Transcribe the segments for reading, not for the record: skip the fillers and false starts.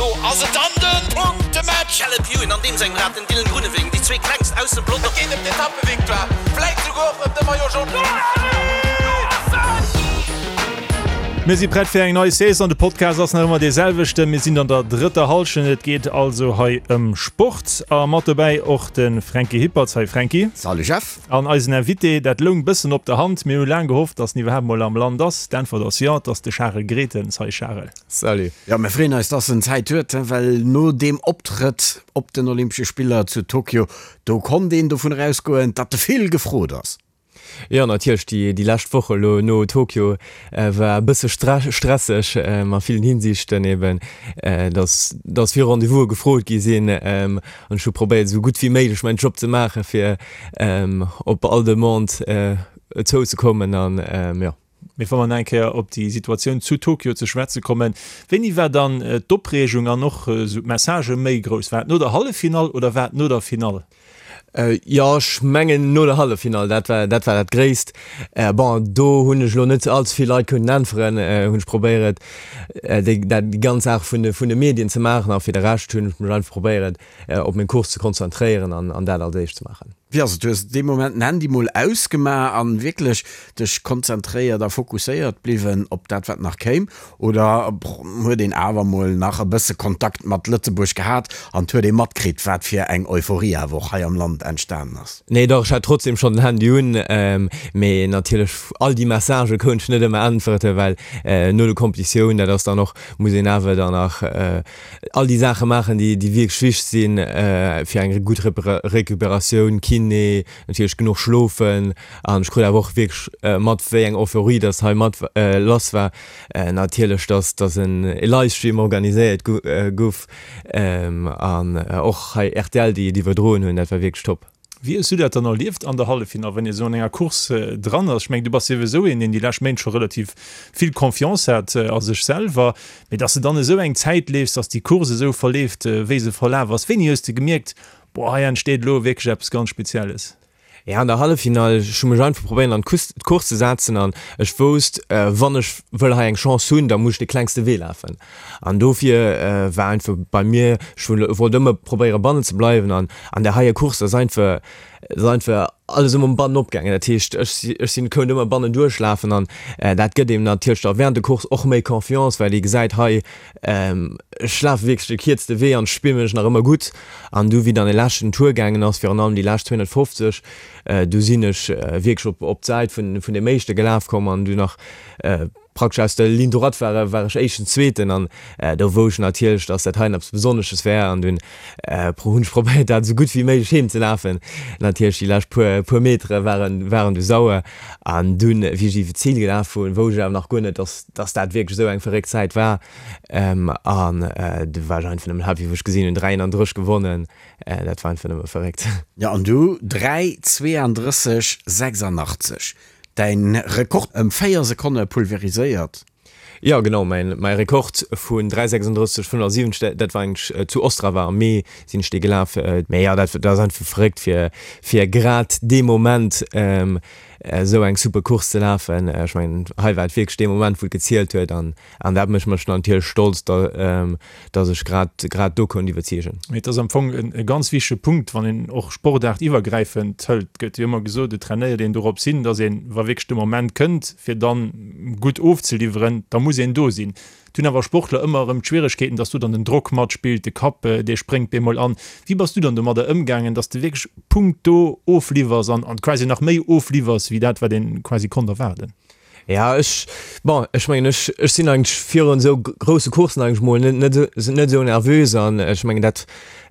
Elo ass et dann de Punktematch! Caleb Ewan an deem sengem Rad, den Dylan Groenewegen, déi zwee klengst aus dem Pelotong. Et geet ëm d'Etappevictoire, vläit souguer och ëm de Maillot Jaune. Mir si prett fir eng nei Saison. De Podcast ass nach ëmmer dee selwechten. Mir sinn an der drëtter Hallschent. Et geet also hei ëm Sport a mat dobäi och de Franky Hippertz. Hi Franky. Salut Jeff. An eisen Invité, dat loung bëssen op der Hand. Mir hu laang gehofft, dass en iwwerhaapt mol am Land ass. D'Äntwert ass jo, et ass de Charel Gretens. Hi Charel. Salut. Jo, mir freeën eis, dass en Zäit huet, well no deem Optrëtt op den Olympesche Spiller zu Tokio, do konnt een dovun erausgoen, datt de vill gefrot ass. Jo, natierlech, déi déi lescht Woch elo no Tokio war e bësse stresseg a villen Hinsichten eben, dass dass vill Rendez-vouse gefrot gi sinn an ech hu probéiert, esou gutt wéi méiglech mäin Job ze maachen, fir op all Demande zouzekommen an jo. Mee wa mer nach eng Kéier op déi Situatioun zu Tokio ze schwätze kommen, wéini war dann d'Opreegung an och esou d'Messagë méi grouss? War et no der Halleffinall oder war et no der Finall? Jo, ech mengen no der Halleffinall, dat war dat war dat Gréisst. Bon, do hunn ech elo net all ze vill Leit kënnen äntweren, hunn ech probéiert déi dat déi ganz Saach vun de vun de Medien ze maachen a fir de Rescht hunn ech mech einfach probéiert op meng Course ze konzentréieren an an dat als éischt ze maachen. Wéi ass et, hues de dee Moment den Handy mol ausgemaach an wierklech dech konzentréiert a fokusséiert bliwwen op dat wat nach kéim oder huet een awer mol nach e bësse Kontakt mat Lëtzebuerg gehat an huet ee matkritt wat fir eng Euphorie awer och hei am Land entstanen ass? Nee dach, ech hat trotzdem schonn den Handy un, mee natierlech all déi Messagë kount ech net ëmmer äntwerte well no de Competitioun, dat ass dann och, muss een awer dann nach all déi Saache maachen, déi déi wierklech wichteg sinn fir eng gutt Recuperatioun, Kiné, natierlech genuch schlofen an ech krut awer och wierklech mat wéi eng Euphorie dass hei mat lass war. Natierlech dass dass en e Livestream organiséiert gouf an och hei rtl déi et iwwerdroen hunn, dat war wierklech top. Wéi hues du dat dann erlieft an der Halleffinall, wann ee sou an enger Course dran ass? Ech mengen, du bass souwisou een, deen déi lescht Méint scho relativ vill Confiance hat a sech selwer, mee dass de dann esou eng Zäit leefs, dass déi Course esou verleeft, wéi se verlaf ass, wéini hues de gemierkt, boah, hei entsteet elo wierklech eppes ganz Spezielles? Ja, an der Halleffinall, ech hu mech einfach probéiert an d'Course ze setzen an ech wousst, wann ech wëll hei eng Chance hunn, da muss ech de klengste Wee lafen. An dofir war einfach bei mir, ech wollt ëmmer probéiere bannen ze bleiwen an an där heier Course ass einfach, ass einfach alles ëmmer bannen opgaangen. Dat heescht, ech ech sinn kount ëmmer bannen duerchlafen an dat gëtt eem natierlech da während der Course och méi Confiance, well ee gesäit, hei ech lafe wierklech de kierzte Wee an ech spille mech nach ëmmer gutt. An du wéi dann de leschten Tour gaangen ass, virun allem déi lescht 250, du sinn ech wierklech op op d'Säit vun vun deem éischte gelaf komm an du nach Praktesch aus der Ligne droite war war ech éischten, zweeten an do wou ech natierlech, dass dat heien eppes Besonnesches wär an dunn hunn ech probéiert dat esou gutt wéi méiglech heem ze lafen. Natierlech déi lescht puer puer Metere waren waren du sauer an dunn wéi ech iwwe d'Zil gelaf hunn, wou ech awer nach guer net, dass dass dat wierklech esou eng verréckt Zäit war an du war ech einfach nëmmen happy wou ech gesinn hunn 3,31 gewonnen, dat war einfach nëmme verréckt. Jo an du 3, 32, 86. Däin Rekord ëm 4 Sekonne pulveriséiert. Jo genau, mäin mäi Rekord vun 3:36,75, dat war eigentlech zu Ostrava am Mee sinn ech dee gelaf. Mee jo, dat dat ass einfach verréckt fir fir grad dee Moment esou eng super Course ze lafen. Ech mengen hei war et wierklech dee Moment wou et gezielt huet an An dat mécht mech natierlech stolz, dass ech grad, grad do konnt iwwerzeegen. Mee et ass am Fong e ganz wichtege Punkt, wann een och sportaartiwwergräifend hëlt, et gëtt jo ëmmer gesot, et trainéiert een dorops hin, dass een, wa wierklech de Moment kënnt, fir dann gutt ofzeliwweren, da muss een do sinn. Et hunn awer Sportler ëmmer erëm d'Schwieregkeeten, dass do dann den Drock matspillt, de Kapp, dee spréngt bemol an. Wéi bass du dann domadder ëmgaangen, dass de wierklech punkto ofliwwers an quasi nach méi ofliwwers, wéi dat, wat een quasi konnt erwaarden? Ja, ech, bon, ech mengen, ech, ech sinn eigentlech virun esou grousse Courssen eigentlech mol net, net, net esou nervös an ech mengen, dat,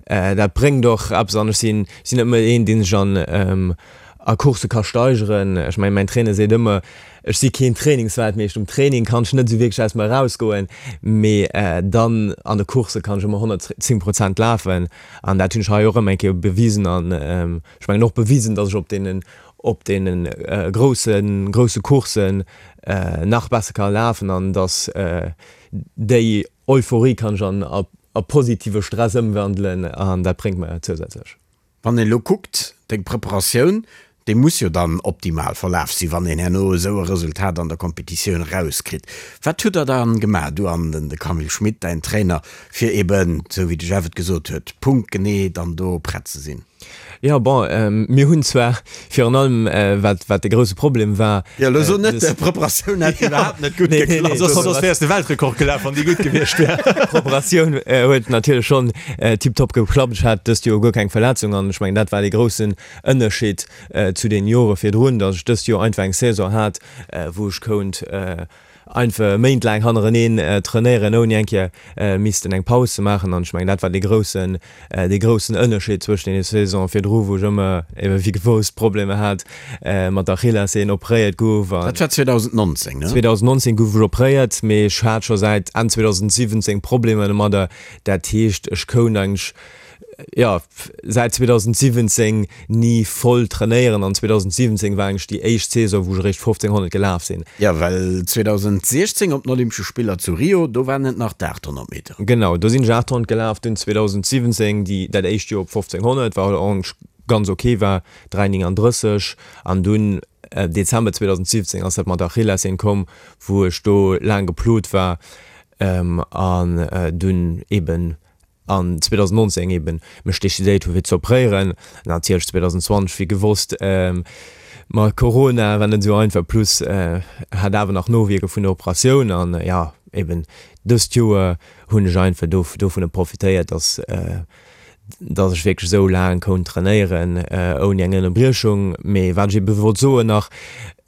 dat bréngt och eppes an ech sinn, sinn net méi een, dee sech an, a Coursse ka steigeren. Ech mengen, mäin Trainer seet ëmmer, ech si keen Trainingsweltmeeschter, um Training kann ech net esou wierklech aus mer erausgoen, mee dann an de Coursse kann ech ëmmer 110 Prozent lafen an dat hunn ech hei och ëmmer eng Kéier bewisen an ech mengen och bewisen, datt ech op deenen op deene grousse grousse Courssen nach besser ka lafen an dass déi Euphorie kann ech an a positive Stress ëmwandelen an dat bréngt mer zousätzlech. Wann een elo kuckt, deng Preparatioun, Dee muss jo dann optimal verlaf sinn, wann een herno esou e Resultat an der Competitioun erauskritt. Wat hutt der dann gemaach, du an den de Camille Schmit, däin Trainer, fir eben, esou wéi de Jeff et gesot huet, punktgenee dann do prett ze sinn? Jo, bon, mir hunn zwar virun allem, wat, wat de grousse Problem war. Jo, elo so net, d'Preparatioun hätt iwwerhaapt net gutt geklappt. Soss, soss wäers de Weltrekord gelaf, wann déi gutt gewiescht wär. D'Preparatioun huet natierlech schonn tiptop geklappt. Ech hat dëst Joer guer keng Verletzung an ech mengen, dat war dee groussen Ënnerscheed zu den Jore virdrun, datt ech dëst Joer einfach eng Saison hat, wou ech kount einfach méintlaang hannereneen trainéieren, ouni eng Kéier missten eng Paus ze maachen. An ech mengen, dat war dee groussen, dee groussen Ënnerscheed zwëschen deene Saisonen virdru, wou ech ëmmer ebe wéi gewoust Problemer hat mat der Achillessehn, opréiert gouf. Dat war 2019, ne? 2019 gouf ech opréiert, mee ech hat scho säit Enn 2017 Problemer domadder. Dat heescht, ech kount eigentlech jo, säit 2017 ni voll trainéieren an 2017 war eigentlech déi éischt Saison, wou ech eréischt 1500 gelaf sinn. Jo, well 2016 op den Olympesche Spiller zu Rio, do waren et nach d'800 Meter. Genau, do sinn ech 800 gelaf, dunn 2017 déi dat éischt Joer op 1500, wat och eigentlech ganz ok war, 3,39 an dunn Dezember 2017 ass dat mat der Achillessehn komm, wou ech do laang geplot war an dunn eben an 2019 eben mech decidéiert hu fir ze opréieren. Natierlech 2020 wéi gewosst mat Corona war net esou einfach, plus hat awer nach Nowierke vun der Operatioun an jo eben dëst Joer hunn ech einfach dovunner profitéiert, dass dass ech wierklech esou laang konnt trainéieren ouni eng Ënnerbriechung. Mee wat ech ebe wollt soen nach,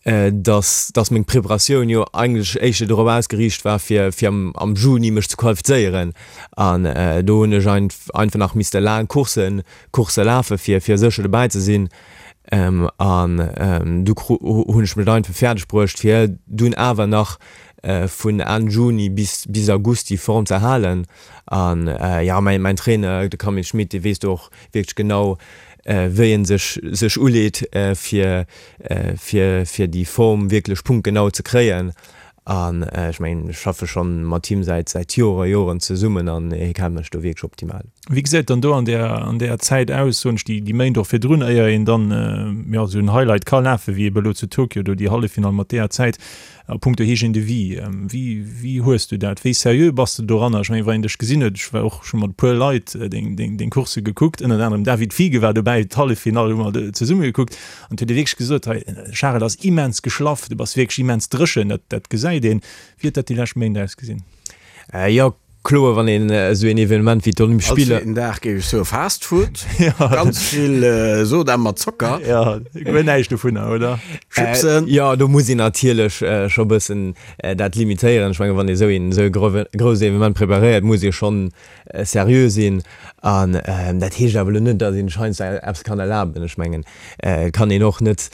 dass dass meng Preparatioun jo eigentlech éischter dorop ausgeriicht war fir fir am am Juni mech ze qualifizéieren an do hunn ech einfach nach misste laang Courssen Coursse lafe fir fir sécher dobäi ze sinn an du hunn ech mech einfach fäerdeg bruecht fir dunn awer nach vun Enn Juni bis bis August déi Form ze halen an jo mäin mäin Trainer de Camille Schmit dee weess do och wierklech genau wéi en sech sech uleet fir fir fir déi Form wierklech punktgenau ze kréien. An ech mengen ech schaffe schonn mat him säit säit Jore Joren zesummen an hie kennt mech do wierklech optimal. Wéi gesäit dann do an där an där Zäit aus, soen ech, déi déi Méint och virdrun, éier een dann jo esou en Highlight ka lafen, wéi ebe elo zu Tokio do déi Halleffinall mat deeër Zäit? A punkto Hygiène de vie, wéi, wéi hues du dat? Wéi seriö bass de doranner? Ech mengen, wann een dech gesinn huet, ech war och scho mat e puer Leit deng, deng, deng Coursse gekuckt, ënnert anerem David Fiege war dobäi, d'Halleffinall hu mer zesumme gekuckt an et huet ee wierklech gesot, hei, Charel ass immens geschlaff, du bass wierklech immens dréchen, dat, dat gesäit een. Wéi huet dat déi lescht Méint ausgesinn? Jo, Kloer, wann een esou een Evenement wéi d'Olympesch Spiller. All zweeten Dag géif ech soe Fast Food, ganz vill Soda mat Zocker. Jo, guer näischt dovunner, oder? Chipsen. Jo, do muss een natierlech scho bëssen dat limitéieren. Ech mengen, wann ee esou een esou e grousst Evenement preparéiert, muss ee schonn seriö sinn. An dat heescht awer elo net, datt een sech heiansdo eppes kann erlaben. Ech mengen, et kann een och net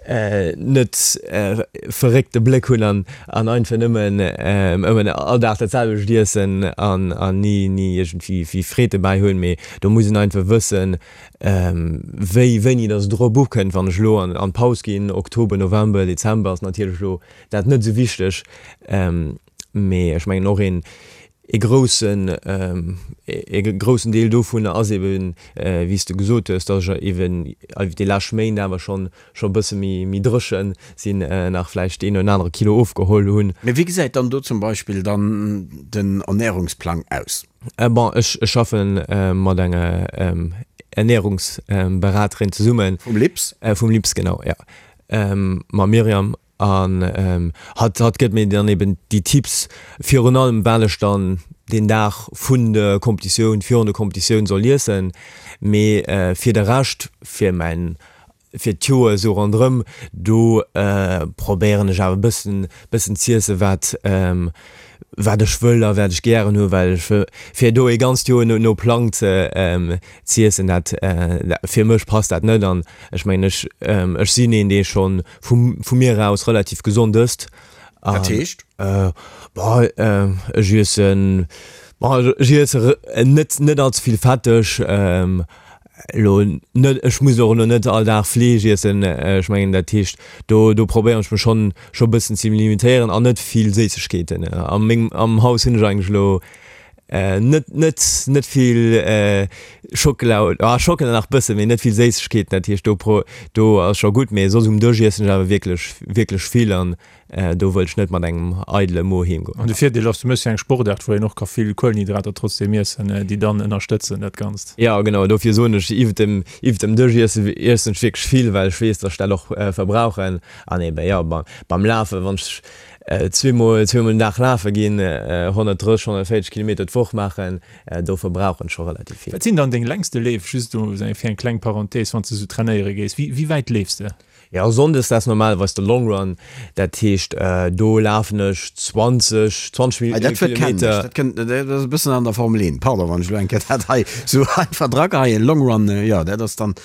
net verréckte Bléck hunn an an einfach nëmmen ëmmer all Dag dat selwecht iessen an an ni ni iergendwéi wéi Freed dobäi hunn, mee do muss een einfach wëssen, wéi wéini datt et drop ukënnt. Wann ech elo an an d'Paus ginn, Oktober, November, Dezember, ass natierlech elo dat net esou wichteg, mee ech mengen och een E groussen, e groussen Deel dovunner ass eben, wéi s de gesot hues, datt ech eben iwwer déi lescht Méint awer schonn, scho e bësse méi, méi dréche sinn, nach vläicht deen oder anere Kilo ofgeholl hunn. Mee wéi gesäit dann do zum Beispill dann den Ernährungsplang aus? Bon, ech, ech schaffe mat enger Ernährungsberaterin zesummen. Vum LIPS? Vum LIPS, genau, jo. Mam Myriam. An hatt hatt gëtt mir dann eben déi Tipps, virun allem wat ech dann deen Dag vun der Competitioun, virun der Competitioun soll iessen. Mee fir de Rescht, fir mäin, fir d'Joer esou ronderëm, do probéieren ech awer e bëssen, bëssen z'iessen, wat, wat ech wëll a wat ech gären hu, well ech fir do ee ganzt Joer no no Plang ze z'iessen, dat fir mech passt dat net. An ech mengen ech ech sinn een, dee schonn vu vu mir aus relativ gesond ësst. Dat heescht? Bon, ech iessen, bon ech iesse net net allze vill fetteg, elo net, ech muss och elo net all Dag Fleesch iessen, ech mengen dat heescht do do probéieren ech mech schonn scho bëssen ze limitéieren an net vill Séissegkeeten. A mengem am Haus hunn ech eigentlech elo net net net vill. Schockela, ah Schockela nach bëssen, mee net vill Séissegkeeten, dat heescht do pro do ass scho gutt, mee soss um Dësch iessen ech awer wierklech wierklech vill an do wëll ech net mat engem eidele Mo heem goen. An de Virdeel ass, du méchs jo eng Sportaart wou een och ka vill Kuelenhydrater trotzdeem iessen, déi dann ënnerstëtzen dat Ganzt. Jo genau, dofir soen ech iwwert dem iwwert dem Dësch iessen iessen ech wierklech vill, well ech weess, dass ech dat och verbrauchen an eben jo beim Lafen, wann ech zweemol zweemol den Dag lafe ginn, 130, 140 Kilometer d'Woch maachen, do verbrauchen ech scho relativ vill. Wat sinn dann deng längste Leef, just do fir eng kleng Parenthèse, wann s de sou trainéiere gees, wéi wéi wäit leefs de? Jo, sonndes dat ass normalerweis de Long Run, dat heescht do lafen ech 20, 20 Kilometer. Dat Wuert kennen ech, dat kënnt, dat ass e bëssen an der Formel 1, pardon wann ech elo eng Kéier dat hei sou einfach drageheien, Long Run, jo dat ass dann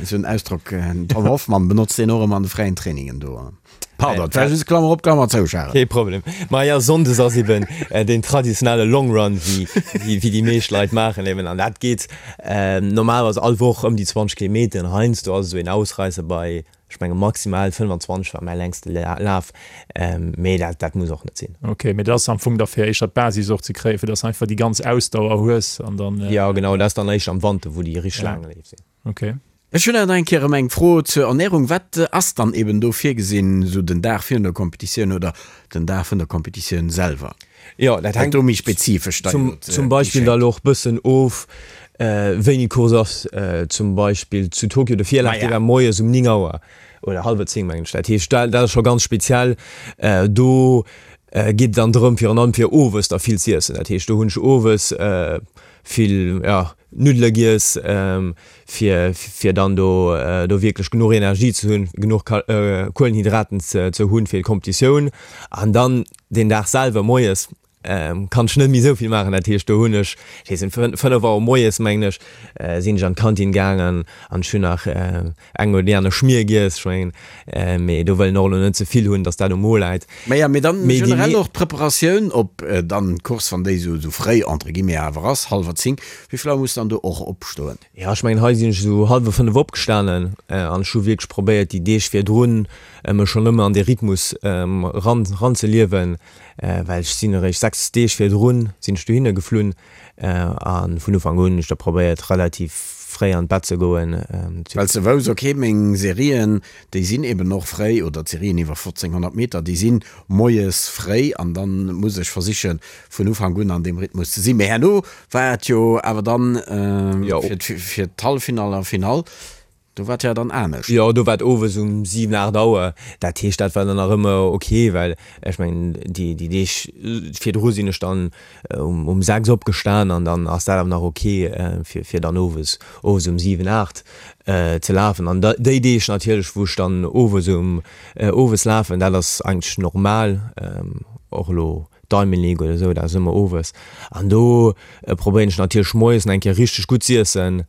esou en Ausdrock, den Tom Hoffmann benotzt deen och ëmmer an de fräien Trainingen do. Pardon, et war just Klammer op, Klammer zou, Charel. Kee Problem. Ma jo, Sonndes ass eben deen traditionelle Long Run, wéi déi meescht Leit maachen eben. An dat geet normalerweis all Woch ëm déi 20 Kilometer. Heiansdo ass esou een Ausreisser bei, ech menge maximal 25 war mäi längste Laf. Mee dat, dat muss och net sinn. Ok, mee dat ass am Fong da fir éischter d'Basis och ze kréien, fir dass de einfach déi ganz Ausdauer hues an dann. Jo, genau, dat ass dann éischter am Wanter, wou déi richteg laang Leef sinn. Ok. Ech hunn awer nach eng Kéier erëm eng Fro zur Ernährung. Wat ass dann eben do virgesinn, esou den Dag virun der Competitioun oder den Dag vun der Competitioun selwer? Jo, dat hänkt do méi spezifesch da zum, zum Beispill da lo och bëssen of, wéini d'Course ass. Zum Beispill zu Tokio, de Virlaf, dee war moies um 9 Auer oder hallwer 10, mengen ech. Dat heescht, dat ass scho ganz speziell. Do geet et dann drëm, virun allem fir owes da vill z'iessen. Dat heescht, do hunn ech owes vill, jo, Nuddele giess, fir fir dann do do wierklech genuch Energie ze hunn, genuch Kuelenhydraten ze ze hunn fir d'Kompetitioun. An dann deen Dag selwer moies kann ech net méi esou vill maachen. Dat heescht do hunn ech, ech weess net, 5 Auer moies mengen ech, sinn ech an d'Kantin gaangen an ech hunn nach eng oder déi aner Schmier giess. Ech mengen, mee do wëll een och elo net ze vill hunn, datt dat um Mo läit. Maja, mee dann generell och d'Preparatioun op dann d'Course, wann déi esou fréi entre guillemets awer ass, hallwer 10, wéi vill Auer muss dann do och opstoen? Jo, ech mengen hei sinn ech esou hallwer 5 opgestanen an ech hu wierklech probéiert déi Deeg virdrun mech schonn ëmmer an dee Rhythmus ran ranzeliewen, well ech sinn eréischt 6 Deeg virdrun sinn ech dohinner geflunn a vun Ufank un hunn ech da probéiert relativ fréi an d'Bett ze goen. Well s de wouss, ok meng Serien déi sinn eben och fréi, oder d'Serien iwwer 1500 Meter déi sinn moies fréi an dann muss ech versichen vun Ufank un an deem Rhythmus ze sinn. Mee herno war et jo awer dann fir d'Halleffinall a Finall, do war et jo dann anescht. Jo, do war et owes um 7, 8 Auer. Dat heescht, dat war dann nach ëmmer ok, well ech mengen déi Deeg virdru sinn ech dann um 6 opgestan an dann ass dat awer nach ok fir dann owes owes um 7, 8 ze lafen. An déi Deeg natierlech wou ech dann owes um owes lafen, dat ass eigentlech normal, och elo Diamond League oder esou, dat ass ëmmer owes. An do probéieren ech natierlech moies nach eng Kéier richteg gutt z'iessen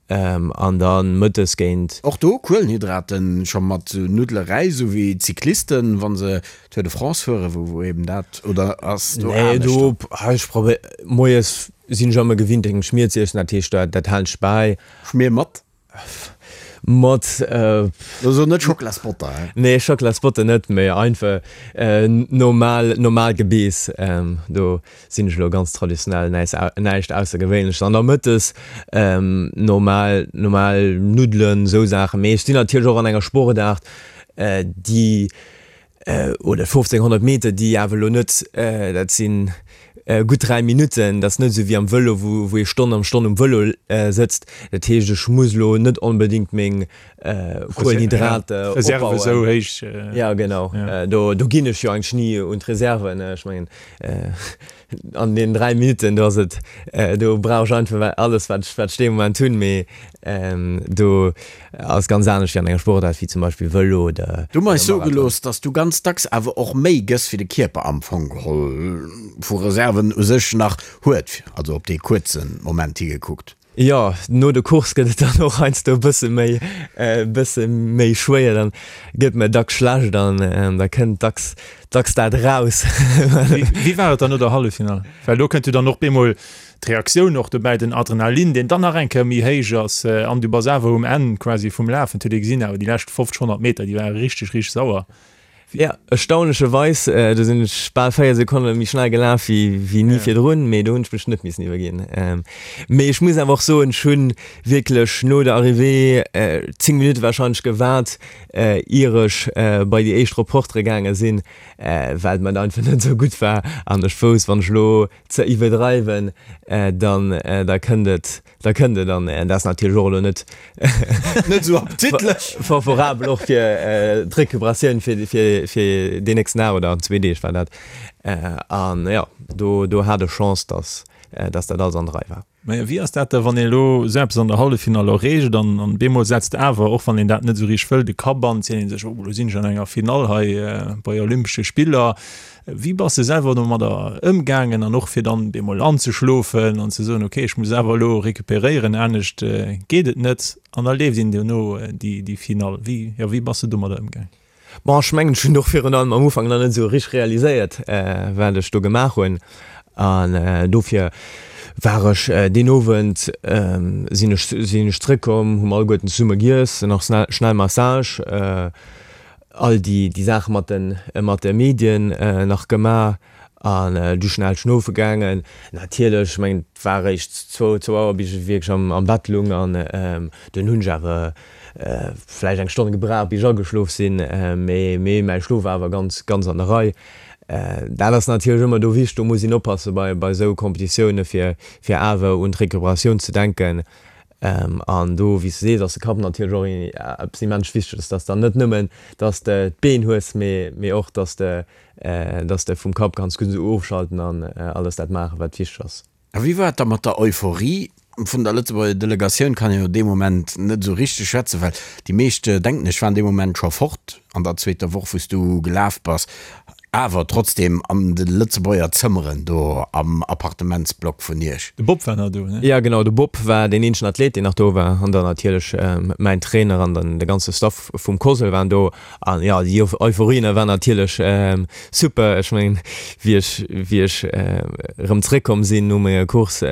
an da mëttes géint. Och do Kuelenhydraten scho mat sou Nuddele Räis, sou wéi d'Cyclisten wa se Tour de France fueren, wou wou eben dat, oder ass do Nee, anescht? do, ech probéier, moies sinn ech ëmmer gewinnt eng Schmier z'iessen, dat heescht dat dat halen ech bäi. Schmier mat? Mat. Lo so net Schocklasbotter, he? Nee, Schocklasbotter net, mee einfach normal, normal Gebeess. Do sinn ech elo ganz traditionell, näischt Aussergewéinleches. An da mëttes normal, normal Nuddelen, esou Saachen. Mee ech sinn natierlech och an enger Sportaart, déi oder 1500 Meter, déi awer elo net, dat si gutt 3 Minutten, dat ass net esou wéi am Vëlo, wou wou ee Stonn am Stonn um Vëlo sëtzt. Dat heescht, ech muss elo net onbedéngt meng Kuelenhydrater Reserve esou opbauen. héich. Ja, genau. Do do ginn ech jo eigentlech ni un d'Reserven. Ech mengen, An deenen 3 Minutten, do ass et, do brauch ech einfach alles, wat ech, wat ech dee Moment hunn. Mee do ass ganz anescht wéi an enger Sportaart wéi zum Beispill Vëlo oder Du mer eis soe gelooss, dass du ganz dacks awer och méi gëss, wéi de Kierper am Fong geholl vu Reserven u sech nach huet, also op dee kuerze Moment higekuckt. Jo, no de Course gëtt et dann och heiansdo e bësse méi, e bësse méi schwéier. Dann gëtt mir dacks schlecht an da kënnt dacks, dacks dat eraus. Wéi war et dann no der Halleffinall? Well do kënnt jo dann och bemol d'Reaktioun och dobäi, den Adrenalin, deen dann nach eng Kéier méi héich ass an du bass awer um Enn quasi vum Lafen. Et huet ee gesinn awer déi lescht 50, 100 Meter, déi ware richteg, richteg sauer. Jo, erstaunlecherweis, do sinn ech bal 4 Sekonne méi schnell gelaf wéi wéi ni virdrun, mee do hunn ech mech net missen iwwerginn. Mee ech muss awer och soen, ech hunn wierklech no der Arrivée 10 Minutte warscheinlech gewaart, ier ech bei déi éischt Reportere gaange sinn, well et mer einfach net esou gutt war an ech wousst, wann ech elo ze iwwerdreiwen, dann da kënnt et Da kënnt et, an dat ass natierlech och elo net net esou appetitlech favorabel och fir d'Recuperatioun fir fir fir deen nächsten Dag oder an zwee Deeg war dat. An jo, do do hat ech Chance, dass dass dat alles an der Rei war. Mä wéi ass dat da, wann ee elo esou eppes an der Halleffinall erreecht an an bemol setzt awer, och wann een dat net esou richteg wëll, de Kapp an, seet ee sech, oh elo sinn ech an enger Finall hei bei Olympesche Spiller. Wéi bass de selwer domadder ëmgaangen an och fir dann bemol anzeschlofen an ze soen, ok ech muss awer elo recuperéieren, anescht geet et net an da leeft een duerno déi Finall. Wéi, jo, wéi bass de domadder ëmgaangen? Bon, ech mengen ech hunn och virun allem am Ufank nach net esou richteg realiséiert wat ech do gemaach hunn an dofir war ech deen Owend sinn ech sinn ech zrëckkomm, hu mer alleguerten zesumme giess, nach schnell Massage, all déi déi Saache mat de mat de Medien nach gemaach an du schnell schlofe gaangen. Natierlech, ech mengen et war eréischt zwou zwou Auer bis ech wierklech am am Bett lung an dunn hunn ech awer vläicht eng Stonn gebraucht bis ech ageschlof sinn, mee mee mäi Schlof war awer ganz ganz an der Rei. Dat ass natierlech ëmmer do wichteg, do muss een oppasse bei bei esou Competitioune fir fir awer un d'Recuperatioun ze denken. An do, wéi s de sees, ass de Kapp natierlech och eppes immens Wichteges, dass dann net nëmmen, dass de d'Been hues, mee och, dass de, dass de vum Kapp kanns gutt ofschalten an alles dat maachen, wat wichteg ass. A wéi war et da mat der Euphorie? Vun der Lëtzebuerger Delegatioun kann een jo dee Moment net esou richteg schwätzen, well déi meescht, denken ech, waren dee Moment scho fort an der zweeter Woch, wou s du gelaf bass. Awer trotzdem an de Lëtzebuerger Zëmmeren do am Appartementsblock vun Iech. De Bob war nach do, ne? Jo genau, de Bob war deen eenzegen Athlet deen nach do war an dann natierlech mäin Trainer an dann de ganze Staff vum COSL waren do an jo déi Euphorie ne war natierlech super. Ech mengen wéi ech wéi ech erëm zréckkomm sinn no menger Course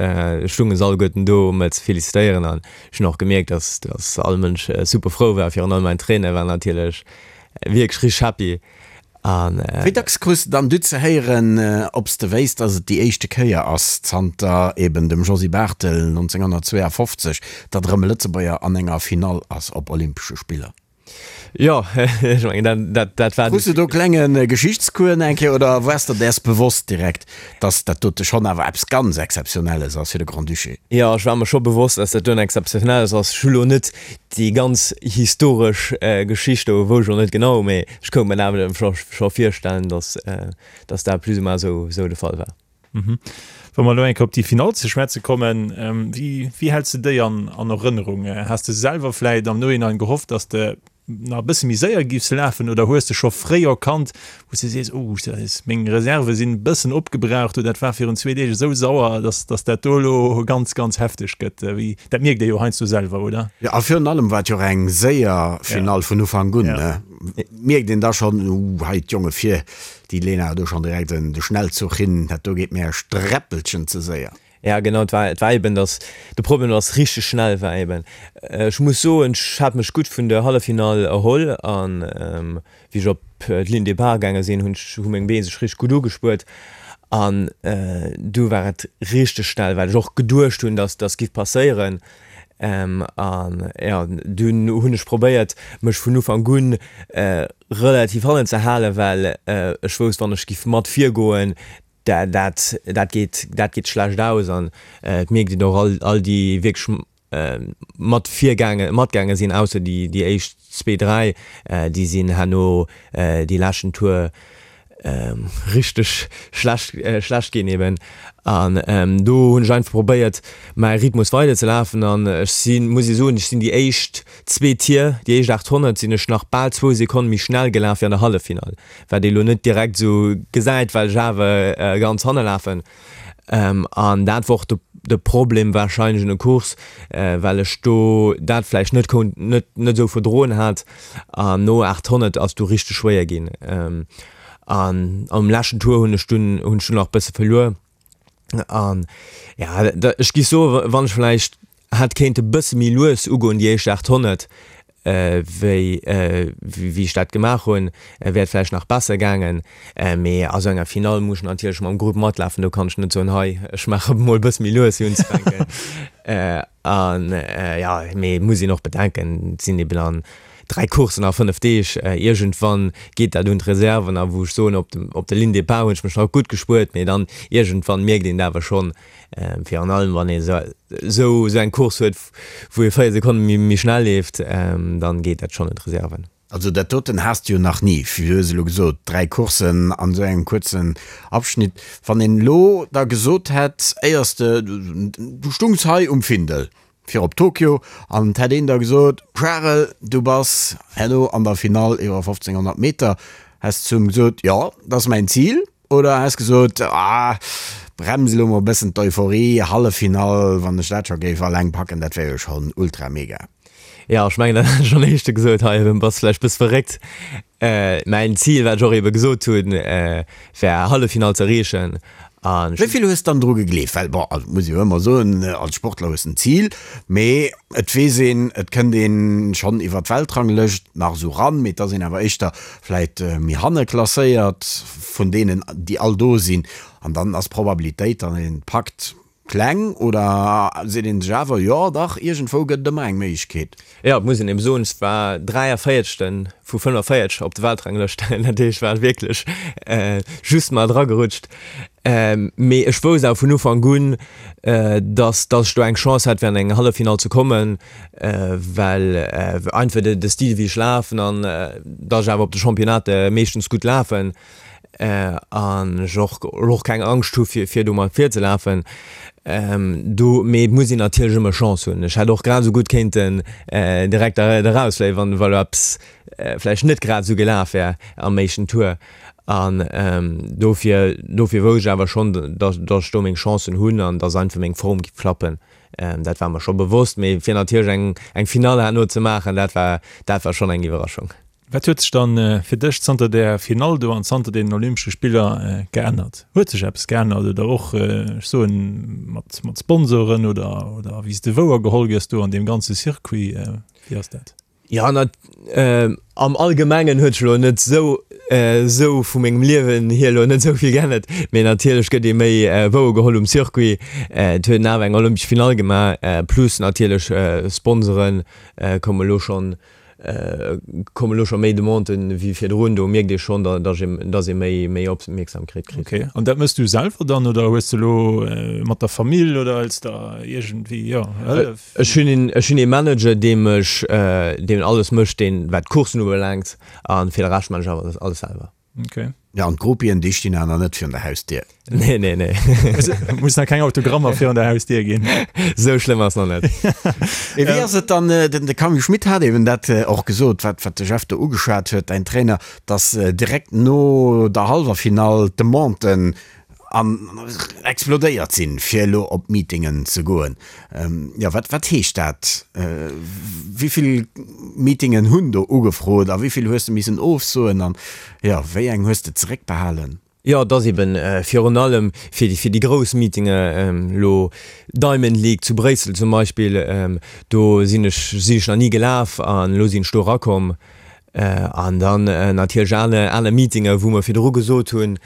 stunge se alleguerten do um mech ze felicitéieren an ech hunn och gemierkt dass dass all Mënsch super frou war, virun allem mäin Trainer war natierlech wierklech richteg happy. An. Wéi dacks krus de dann du ze héieren, ob s de wéisst, dass et déi éischte Kéier ass, zanter eben dem Josy Barthel 1952, datt erëm e Lëtzebuerger an enger Finall ass op Olympesche Spiller? Jo, ech mengen, dat, dat, dat war. Krus de do klenge Geschichtscours eng Kéier oder waars der däers bewosst direkt, dass dat dote schonn awer eppes ganz Exzeptionelles ass fir de Grand-Duché? Jo, ech war mer scho bewosst, dass dat doen Exzeptionelles ass. Ech hu lo net déi ganz historesch Geschicht do wou ech och net genau, mee ech konnt mer awer scho virstellen, dass dass dat plus ou moins esou esou de Fall war. Wa mer elo eng Kéier op déi Finall ze schwätze kommen, wéi wéi häls de déi an an Erënnerung? Has de selwer vläit am Nohinein gehofft, dass de nach e bësse méi séier giffs lafen oder hues de scho fréi erkannt, wou s de sees, oh meng Reserve sinn e bëssen opgebraucht oder dat war virun zwee Deeg esou sauer, dass dass dat do elo ganz ganz hefteg gëtt? Wéi, dat mierkt ee jo heiansdo selwer, oder? Jo, a virun allem war et jo och eng séier Finall vun Ufank un, ne? Mierkt een da schonn, uh hei d'Jonge vir, déi leeën awer do schonn direkt de Schnellzuch hin, dat do geet mir e Sträppelchen ze séier. Ja genau, et war, et war eben, dass de Problem, dass richteg schnell war eben. Ech muss soen, ech hat mech gutt vun der Halleffinall erholl an wéi ech op d'Ligne de départ gaange sinn, hunn ech, hu meng Been sech richteg gutt ugespuert an du war et richteg schnell, wat ech och geduecht hunn, dass dass giff passéieren. An jo, dunn hunn ech probéiert, mech vun Ufank un relativ hannen ze halen, well ech wousst, wann ech giff mat virgoen, Dat, dat geet, dat geet schlecht aus an et mierkt een och all, all déi wierklech mat virgaange, matgaange sinn, ausser déi, déi éischt zwee, dräi, déi sinn herno déi leschten Tour richteg schlecht, schlecht ginn eben. An do hunn ech einfach probéiert, mäi Rhythmus weider ze lafen an ech sinn, muss ee soen, ech sinn déi éischt zwee Tier, déi éischt 800 sinn ech nach bal zwou Sekonne méi schnell gelaf wéi an der Halleffinall. Wat ee lo net direkt esou gesäit, well ech awer ganz hanne lafen. An dat wor och de Problem warscheinlech un der Course, well ech do dat vläicht net konnt, net net esou verdroen hat. An no 800 ass du richteg schwéier ginn. An am leschten Tour hunn ech dunn hunn ech dunn nach e bësse verluer. An ja, ech gi soe wann ech vläicht hätt kéinte bësse méi lues ugoen déi éischt 800. Wéi wéi ech dat gemaach hunn, wär et vläicht nach besser gaangen. Mee a sou enger Finall muss ech natierlech mam Grupp matlafen. Do kann ech net soen, hei ech maache mol e bësse méi lues fir unzefänken. An jo, mee et muss een och bedenken, et sinn eben an 3 Courssen a 5 Deeg. Iergendwann geet dat un d'Reserven a wou ech soen, op dem op der Ligne de départ hunn ech mech nach gutt gespuert, mee dann iergendwann mierkt een et awer schonn, virun allem wann ee sou sou eng Course huet, wou ee 4 Sekonne méi schnell leeft, dann geet dat schonn un d'Reserven. Also dat doten has de jo nach ni, du hues elo gesot 3 Courssen an esou engem kuerzen Abschnitt. Wann een elo da gesot hätt, éiers de, du stungs hei um Findel fir op Tokio an et hätt een da gesot, Charel, du bass herno an der Finall iwwer 1500 Meter, häss de zu em gesot, jo, dat ass mäin Zil? Oder häss gesot, ah, brems elo mol e bëssen d'Euphorie, Halleffinall, wann ech dat scho géif alleng packen, dat wär jo schonn ultra mega. Jo, ech mengen, dat hat ech am éischte gesot, hei, bass vläicht bëss verréckt. Mäin Zil, wat ech och ebe gesot hunn, war Halleffinall ze erreechen an. Wéi vill hues dann dru gegleeft? Well, bon, also muss ee jo ëmmer soen, als Sportler hues en Zil, mee et weess een, et kënnt een schonn iwwer d'Weltranglëscht nach esou ran, mee et ass een awer éischter vläit méi hanne klasséiert vun deenen, déi all do sinn, an dann ass d'Probabilitéit, datt een et packt, kleng. Oder seet een sech awer, jo dach, iergendwou gëtt et ëmmer eng Méiglechkeet? Jo, et muss een eben soen, ech war 43. vu 45 op der Weltranglëscht, dat heescht, ech war wierklech just mar dragerutscht. Mee ech wousst awer vun Ufank un, datt datt ech do eng Chance hätt fir an eng Halleffinall ze kommen, well einfach de Stil wéi ech lafen an datt ech awer op de Championnate meeschtens gutt lafen an ech och och keng Angscht hu fir fir do mat virzelafen. Do mee et muss een natierlech ëmmer Chance hunn. Ech hätt och grad esou gutt kéinten direkt erausfléien, wann wa lo eppes vläicht net grad esou gelaf wär am éischten Tour. An dofir, dofir wousst ech awer schonn, dass, dass ech do meng Chancen hunn an dass einfach meng Form giff klappen. Dat war mer scho bewosst, mee fir natierlech eng, eng Finall herno ze maachen, dat war, dat war schonn eng Iwwerraschung. Wat huet sech dann fir dech zanter där Finall do an zanter deenen Olympesche Spiller geännert? Huet sech eppes geännert oder och, ech soen, mat, mat Sponsoren oder, oder wéi s de wouergeholl gëss do an deem ganze Circuit? Wéi ass dat? Jo, na, am Allgemengen huet sech elo net esou, esou vu mengem Liewen hier elo net esou vill geännert, mee natierlech gëtt ee méi wouergeholl um Circuit. Et huet een awer eng olympesch Finall gemaach, plus natierlech Sponsoren komme elo schonn, komme lo scho méi Demanden wéi virdrun. Do mierkt ee schonn, dass ee, dass ee méi, méi Opmierksamkeet kritt. Ok, an dat mëss du selwer dann oder hues de elo mat der Famill oder hëls der iergendwéi, jo, Hëllef? Ech hunn een, ech hunn ee Manager, dee mech, deen alles mécht, deen, wat d'Coursen ubelaangt, a fir de Rescht man ech awer alles selwer. Okay. Ja, an d'Groupien, déi stinn awer nach net virun der Hausdier. Nee, nee, nee. Muss nach keng Autogrammer virun der Hausdier ginn. Sou schlëmm ass nach net. Mee wéi ass et dann, den de Camille Schmit hat eben dat och gesot, wat wat de Jeff do ugeschwat huet, däin Trainer, datt direkt no der hallwer Finall d'Demanden an explodéiert sinn, fir elo op Meetingen ze goen. Jo, wat, wat heescht dat? Wéi vill Meetingen hunn do ugefrot a wéi vill hues de missen ofsoen an, jo, wéi eng hues de zeréckbehalen? Jo, et ass eben virun allem fir déi, fir déi grouss Meetinge, elo Diamond League zu Bréissel zum Beispill, do sinn ech, sinn ech nach ni gelaf an elo sinn ech do erakomm. An dann natierlech aner, aner Meetinge wou mer virdru gesot hunn,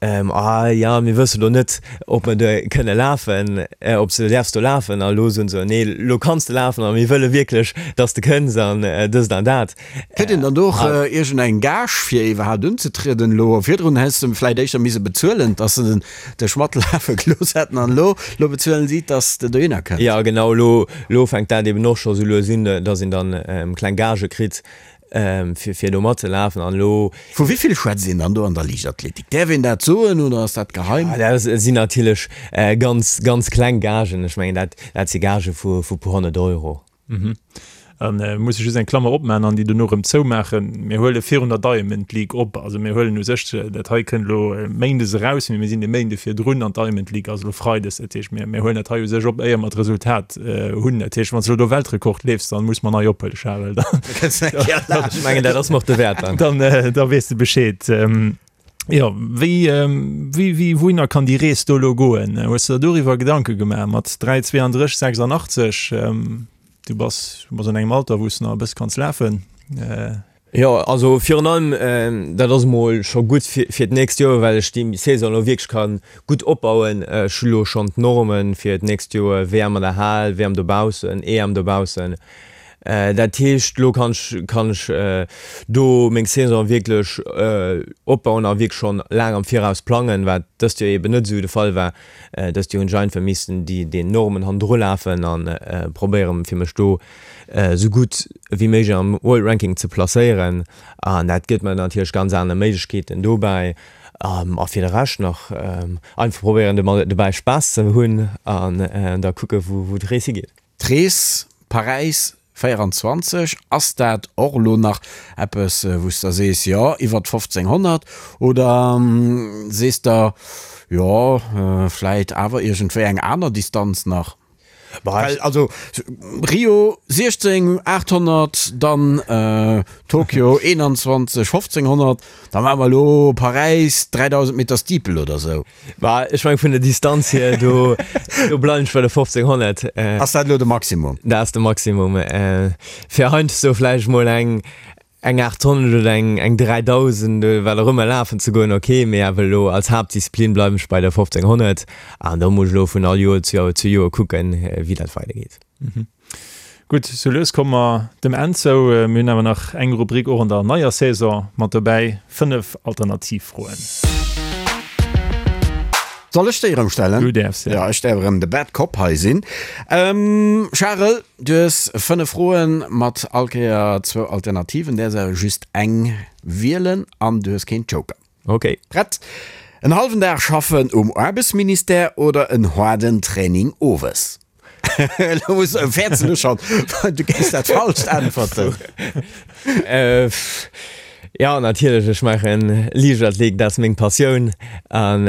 ah jo, mir wësse lo net, ob mer do kënne lafen, ob s de däerfs do lafen. A lo soen se, nee, lo kanns de lafen a mir wëlle wierklech, dass de kënns an dëst an dat. Kritt een dann do och iergendeng Gage fir iwwerhaapt unzetrieden elo? Virdrun häss de vläicht éischter mise bezuelen, dass se dech matlafe gelooss hätten an elo, elo bezuelen si, dass de dohinner kënns. Jo, genau, elo, elo fänkt dat eben och scho sou lues un, dass een dann kleng Gagë kritt, fir, fir do matzelafen an elo. Vu wéi vill schwätzt een dann do an der Liichtathletik? Däerf een dat soen oder ass dat geheim? Jo, dat sinn natierlech ganz, ganz kleng Gagen. Ech mengen, dat, dat si Gagë vu, vu puer 100 Euro. Mhm. An äh, muss ech just eng Klammer opmachen an déi dono rëm zoumaachen. Mir huele virun der Diamond League op. Also mir huelen u sech, äh, dat hei kënnt elo äh, Méindes eraus, mee mir sinn de Méinde virdrun an d'Diamond League ass elo Freides. Dat heescht, mir, mir huelen dat hei u sech op, éier mer d'Resultat äh, hunn. Dat heescht, wann s de elo do Weltrekord leefs, dann muss mer nei ophuelen, Charel. Dann, Ech mengen, dat ass mer och de Wäert dann. dann, äh, da weess de Bescheed. Ähm, Jo, wéi, wéi, wéi, wouhinner kann déi Rees do elo goen? Hues de der doriwwer Gedanke gemaach mat 3, 32, 86? Du bass, du bass an engem Alter, wou s de nach e bësse kanns lafen. Jo, also virun allem, dat ass emol scho gutt fir d'nächst Joer, well ech déi Saison elo wierklech ka gutt opbauen. Ech hu lo schonn d'Norme fir d'nächst Joer, WM an der Hal, WM dobaussen, EM dobaussen. Dat heescht, elo kann ech, kann ech do meng Saison wierklech opbauen a wierklech schonn laang am Viraus plangen, wat dëst Joer eeben net esou de Fall war. Dëst Joer hunn ech einfach missen déi den Normen hannendru lafen a probéieren, fir mech do esou gutt wéi méiglech am World Ranking ze placéieren. An dat gëtt mer natierlech ganz aner Méiglechkeeten dobäi. A fir de Rescht nach einfach probéieren dobäi Spaass ze hunn an da kucke wou d'Rees higeet. D'Rees Paräis 24, ass dat och elo nach eppes wou s de sees, jo iwwert 1500 oder sees de, jo vläit awer iergendwéi eng aner Distanz nach? Well also Rio 16 800, dann Tokio 21 1500, da maache mer elo Paräis 3000 Meter Steeple oder sou. Bah, ech meng vun der Distanz hier, do, do bleiwen ech bei der 1500. Ass dat elo de Maximum? Dat ass de Maximum. Fir heiansdo vläicht mol eng, eng 800 oder eng, eng 3000 oder wat och ëmmer lafen ze goen, ok, mee awer elo als Haaptdisziplin bleiwen ech bei der 1500 an do muss ech elo vun all Joer zu Joer zu Joer kucken, wéi dat weidergeet. Gutt, sou lues komme mer dem Enn zou. Mir hunn awer nach eng Rubrik och an der neier Saison mat dobäi, 5 Alternativfroen. Soll ech déi erëm stellen? Du däerfs, ja. Ja, ech däerf erëm de Bad Cop hei sinn. Charel, du hues 5 Froen mat all Kéier zwou Alternativen, däerfs awer just eng wielen an du hues keen Joker. Ok. Prett? En hallwen Dag schaffen um Aarbechtsministère oder en haarden Training owes? Elo muss fäerts du schonn, du géifs dat Falscht äntwerten. Jo, natierlech, ech maachen Liichtathletik, dat ass meng Passioun an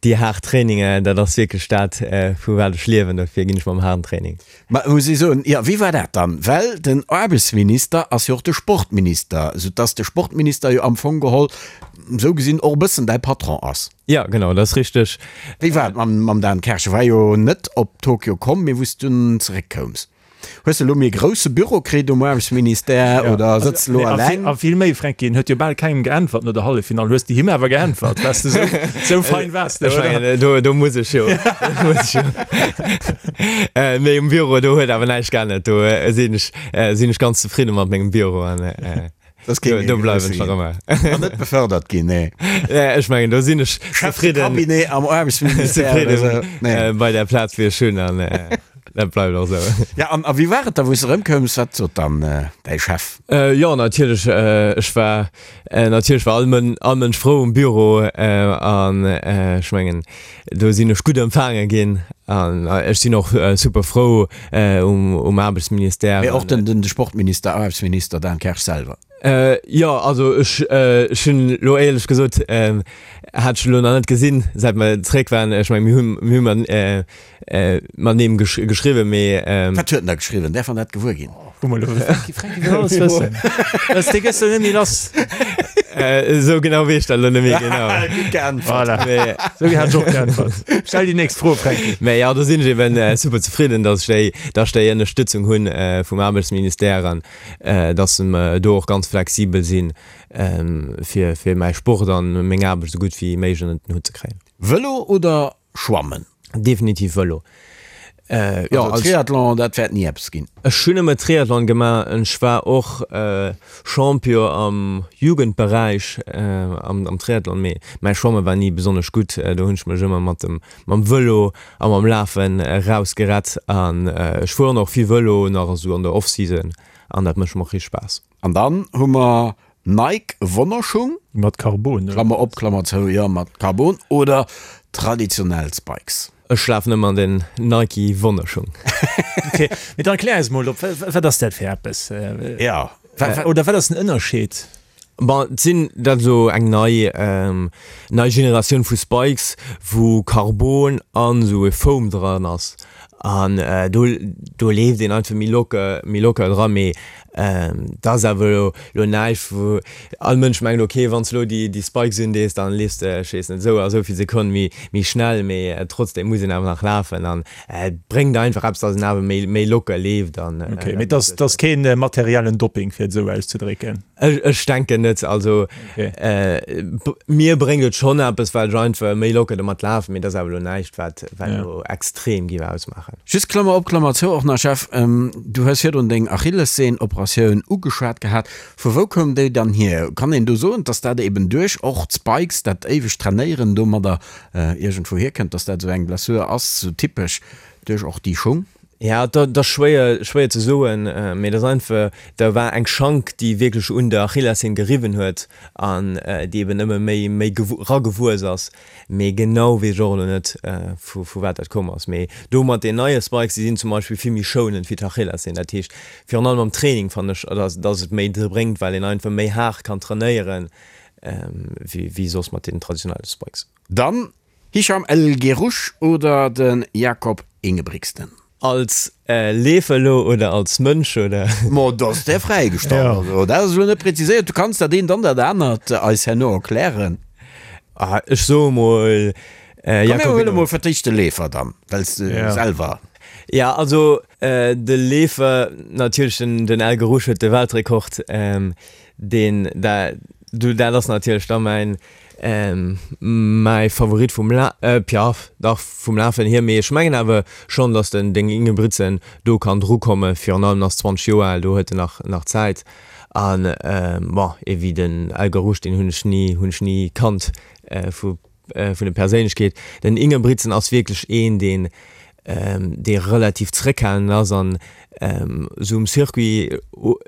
déi haart Traininger, dat ass wierklech dat, vu wat ech liewen, dofir ginn ech mam haarden Training. Ma muss ech soen, jo, wéi war dat dann? Well den Aarbechtsminister ass jo och de Sportminister, soudass de Sportminister jo am Fong geholl esou gesinn och e bëssen däi Patron ass. Jo, genau, dat ass richteg. Wéi war et mam Dan Kersch? E war jo net op Tokio komm, mee wou s du dunn zeréckkoums. Hues de elo méi e grousse Büro kritt um Aarbechtsministère oder sëtz de elo eleng? A vill méi, Fränki, en huet jo bal kengem geäntwert no der Halleffinall. Hues de him awer geäntwert, weess de, sou fein waars de, oder? Ech mengen, do, do muss ech jo. Do muss ech jo. Mee um Büro, do huet awer näischt geännert. Do sinn ech, sinn ech ganz zefridde mat mengem Büro an. Das kéint Do bleiwen ech nach ëmmer. An net befördert ginn, nee. Nee, ech mengen, do sinn ech Chef de Cabinet am Aarbechtsministère oder sou. Nee. Bei der Plaz, wéi ech hunn, an dat bleift och sou. Ja, an a wéi war et da, wou s de erëmkoums? Wat sot dann däi Chef? Jo, natierlech, ech war, natierlech war all Mën, all Mënsch frou um Büro an ech mengen, do sinn ech gutt empfaange ginn an ech sinn och super frou um Aarbechtsministère. Mee och den den Sportminister, Aarbechtsminister Dan Kersch selwer? Jo, also ech ech hunn elo éierlech gesot hat ech elo nach net gesinn, säit mer zeréck waren. Ech meng mir hunn mir hu matenee geschriwwen, mee. Wat huet en da geschriwwen? Däerf mer dat gewuer ginn? Guck mol, Franky, Franky wëll alles wëssen. Dës, dee gëss de net méi lass. Esou genau weess ech dat elo net méi genau. Gutt geäntwert. Voilà. Mee, Esou hat ech och geäntwert. Stell déi nächst Fro, Franky. Mee jo, do sinn ech eben super zefridden, dass ech déi, dass ech déi Ënnerstëtzung hunn vum Aarbechtsministère an dass se do och ganz flexibel sinn, fir, fir mäi Sport an meng Aarbecht esou gutt wéi méiglech ënnert den Hutt ze kréien. Vëlo oder Schwammen? Definitiv Vëlo. Jo, also Triathlon, dat wäert ni eppes ginn. Ech hunn ëmmer Triathlon gemaach. Ech war och Champion am Jugendberäich am Triathlon, mee mäi Schwamme war ni besonnesch gutt. Do hunn ech mech ëmmer mat dem mam Vëlo a mam Lafen erausgerett. An ech fueren och vill Vëlo nach esou an der Off-Season an dat mécht mer och richteg Spaass. An dann hu mer Nike Wonnerschung. Mat Carbon, oder? Klammer op, Klammer zou, jo, mat Carbon oder traditionell Spikes. Ech lafen ëmmer an den Nike Wonnerschung. Ok, mee dann erklär eis mol op, wat ass dat fir eppes? Ja. Oder wat ass den Ënnerscheed? Bon, et sinn dat elo eng nei, nei Generatioun vu Spikes, wou Carbon an esou e Foam dran ass. An do, do leeft een einfach méi locker, méi locker dran. Mee. Dat ass awer elo elo näischt, wou all Mënsch mengt, ok, wann s de elo déi déi Spikes undees, dann leefs de, ech weess net, esou a esou vill Sekonn méi méi schnell. Mee trotzdem muss een awer nach lafen an et bréngt einfach eppes, datt een awer méi méi locker leeft an. Ok, mee et ass et ass keen materiellen Dopping, fir et esou auszedrécken? Ech ech denken net. Also mir bréngt et schonn eppes, well ech einfach méi locker domat lafen, mee et ass awer elo näischt, wat wat elo extrem géif ausmaachen. Just Klammer op, Klammer zou och nach, Jeff, du hues virdrun deng Achillessehn-Operatioun ugeschwat gehat. Vu wou koum déi dann hier? Kann een do soen, dass dat eben duerch och d'Spikes, dat éiwegt Trainéieren domadder iergendwou hierkënnt, dass dat esou eng Blessure ass, sou typesch duerch och déi Schung? Ja, dat ass schwéier, schwéier ze soen, mee dat ass einfach, da war eng Schank, déi wierklech un der Achillessehn geriwwen huet an déi eben ëmmer méi, méi ragewuess ass. Mee genau weess ech och elo net, vu vu wat dat komm ass. Mee do mat den neie Spikes, déi sinn zum Beispill vill méi schounend wéi d'Achillessehn. Dat heescht, virun allem am Training fannen ech, dass dass et méi bréngt, well een einfach méi haart kann trainéieren, wéi wéi soss mat den traditionelle Spikes. Dann Hicham El Guerrouj oder de Jakob Ingebrigtsen? Als Leefer elo oder als Mënsch oder? Ma dat ass där fräigestallt. Also dat ass elo net präziséiert. Du kanns dat eent an dat anert eis herno erklären. Ah, ech soe mol Komm mir huele mol fir d'éischt de Leefer dann, well s de selwer. Ja, also de Leefer natierlech, den El Guerrouj huet de Weltrekord, deen da, du dat ass natierlech da mäin Mäi Favorit vum La Piaf, dach vum Lafen hier, mee ech mengen awer schonn, datt den den Ingebrigtsen do kann drukomme, virun allem ass 20 Joer al, do huet en nach nach Zäit. An bon, ee wéi den El Guerrouj, deen hunn ech ni hunn ech ni kannt vu vun der Perséinlechkeet. Den Ingebrigtsen ass wierklech een, deen dee relativ zréckhalend ass an esou um Circuit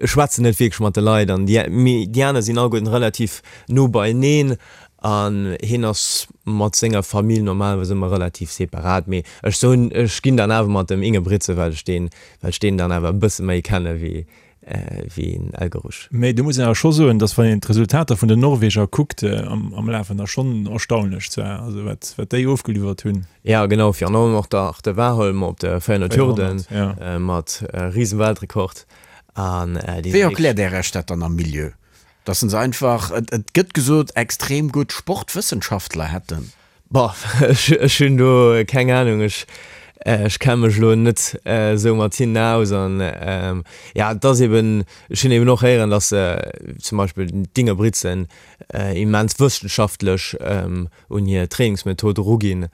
schwätzt en net wierklech mat de Leit an déi mee déi aner sinn alleguerten relativ no beieneen an hien ass mat senger Famill normalerweis ëmmer relativ separat. Mee ech soen, ech ginn dann awer mat dem Ingebrigtsen, well ech deen, well ech deen dann awer e bësse méi kenne wéi wéi en Elgerusch. Mee do muss een awer scho soen, datt wann een d'Resultater vun den Norweger kuckt am Lafen, da schonn erstaunlech zwar, also wat wat déi ofgeliwwert hunn. Ja genau, virun allem och der de Warholm op de 400 Hürden mat Risenweltrekord an déi Wéi erkläert Är Iech dat dann am Milieu, datt se einfach, et gëtt gesot, extrem gutt Sportwëssenschaftler hätten? Boah, ech hunn do keng Ahnung, ech ech kenne mech elo net esou mat hinnen aus an ja et ass eben, ech hunn eben och héieren, datt se zum Beispill d'Ingebrigtsen immens wëssenschaftlech un hir Trainingsmethod eruginn,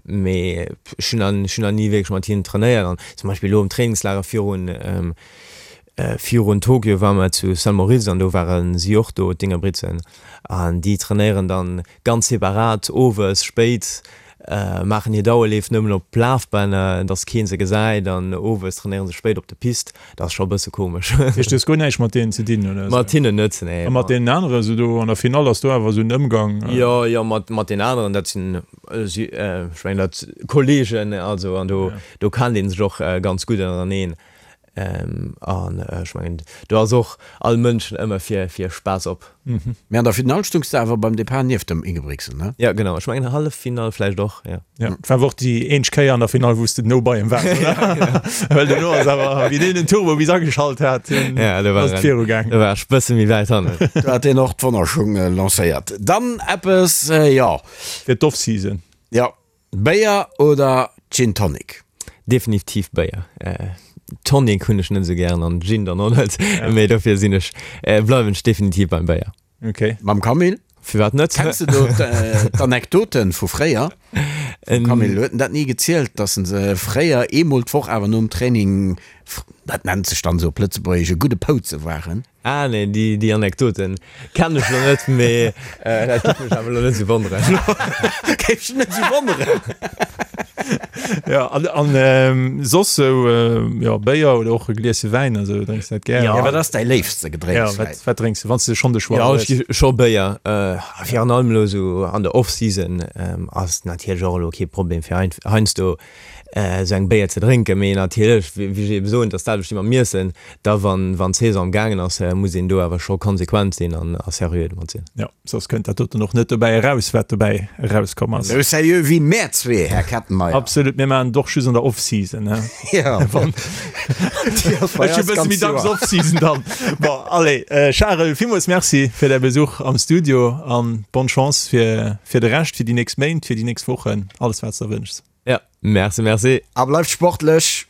mee ech hunn nach ech hunn nach ni wierklech mat hinnen trainéiert an zum Beispill elo am Trainingslager virun Virun Tokio ware mer zu Saint Moritz an do ware si och do, d'Ingebrigtsen. An déi trainéieren dann ganz separat owes spéit, maachen hir Dauerleef nëmmen op Lafbänner, dass keen se gesäit an owes trainéieren se spéit op de Piste. Dat ass scho e bësse komesch. Dat heescht, du hues guer näischt mat deenen ze dinn, oder? Mat hinnen net, nee. A mat deenen aneren, esou do an der Finall, ass do awer esou en Ëmgang? Jo, jo, mat deenen aneren, dat sinn, ech mengen dat Kollegen, also an do, do kennt ee sech och ganz gutt ënnereneen. An ech mengen, do ass och all Mënsch ëmmer fir fir Spaass op. Mee an der Finall stungs de awer beim Depart nieft dem Ingebrigtsen, ne? Jo, genau. Ech mengen Halleffinall vläicht och, jo. Jo, et war awer och déi eenzeg Kéier an der Finall, wou s de no bei em waars, oder? Well duerno ass awer, wéi deen den Turbo bis ageschalt hat, ass et viru gaang. Do war ech bësse méi wäit hannen. Do hat deen och d'Wonnerschung lancéiert. Dann eppes, jo. Fir d'Off-Season. Jo, Béier oder Gin Tonic? Definitiv Béier. Tonic hunn ech net esou gären an Gin dann och net, mee dofir sinn ech, bleiwen ech definitiv beim Béier. Ok. Mam Camille? Firwat net? Kenns de do d'Anekdoten vu fréier vum Camille? Huet en dat ni gezielt, dass en se fréier eemol d'Woch awer nom Training, dat nennt sech dann esou op Lëtzebuergesch, e gudde Pouze waren? Ah nee, déi, déi Anekdoten kennen ech lo net, mee dat géif mech awer lo net esou wonneren. Géif dech net esou wonneren. Ja, an, an soss sou, jo, Béier oder och e Glieschen Wäin, also drénks de dat gär? Ja, wat ass däi léifste Gedrénks? Ja, wat, wat drénks de, wann s de schonn de Choix hues? Ja, ech gi scho Béier, virun allem elo sou an der Off-Season ass natierlech och elo kee Problem fir heiansdo esou eng Béier ze drénken, mee natierlech, wéi ech ebe soen, et ass dat selwecht wéi mam Iessen, da wann wann d'Saison am gaangen ass, muss een do awer scho konsequent sinn an a seriö domat sinn. Jo, soss kënnt dat doten och net dobäi eraus, wat dobäi erauskomm ass. Esou seriö wéi mär zwee, Här Kettenmeyer. Absolut. Absolut, mir maachen et och just an der Off-Season, ne? Ja. Ech hu bësse méi dacks Off-Season dann. Bon, allez, Charel, villmools Merci fir däi Besuch am Studio an bonne Chance fir, fir de Rescht, fir déi nächst Méint, fir déi nächst Wochen, alles wat s de der wënschs. Ja, merci, merci. A bleift sportlech!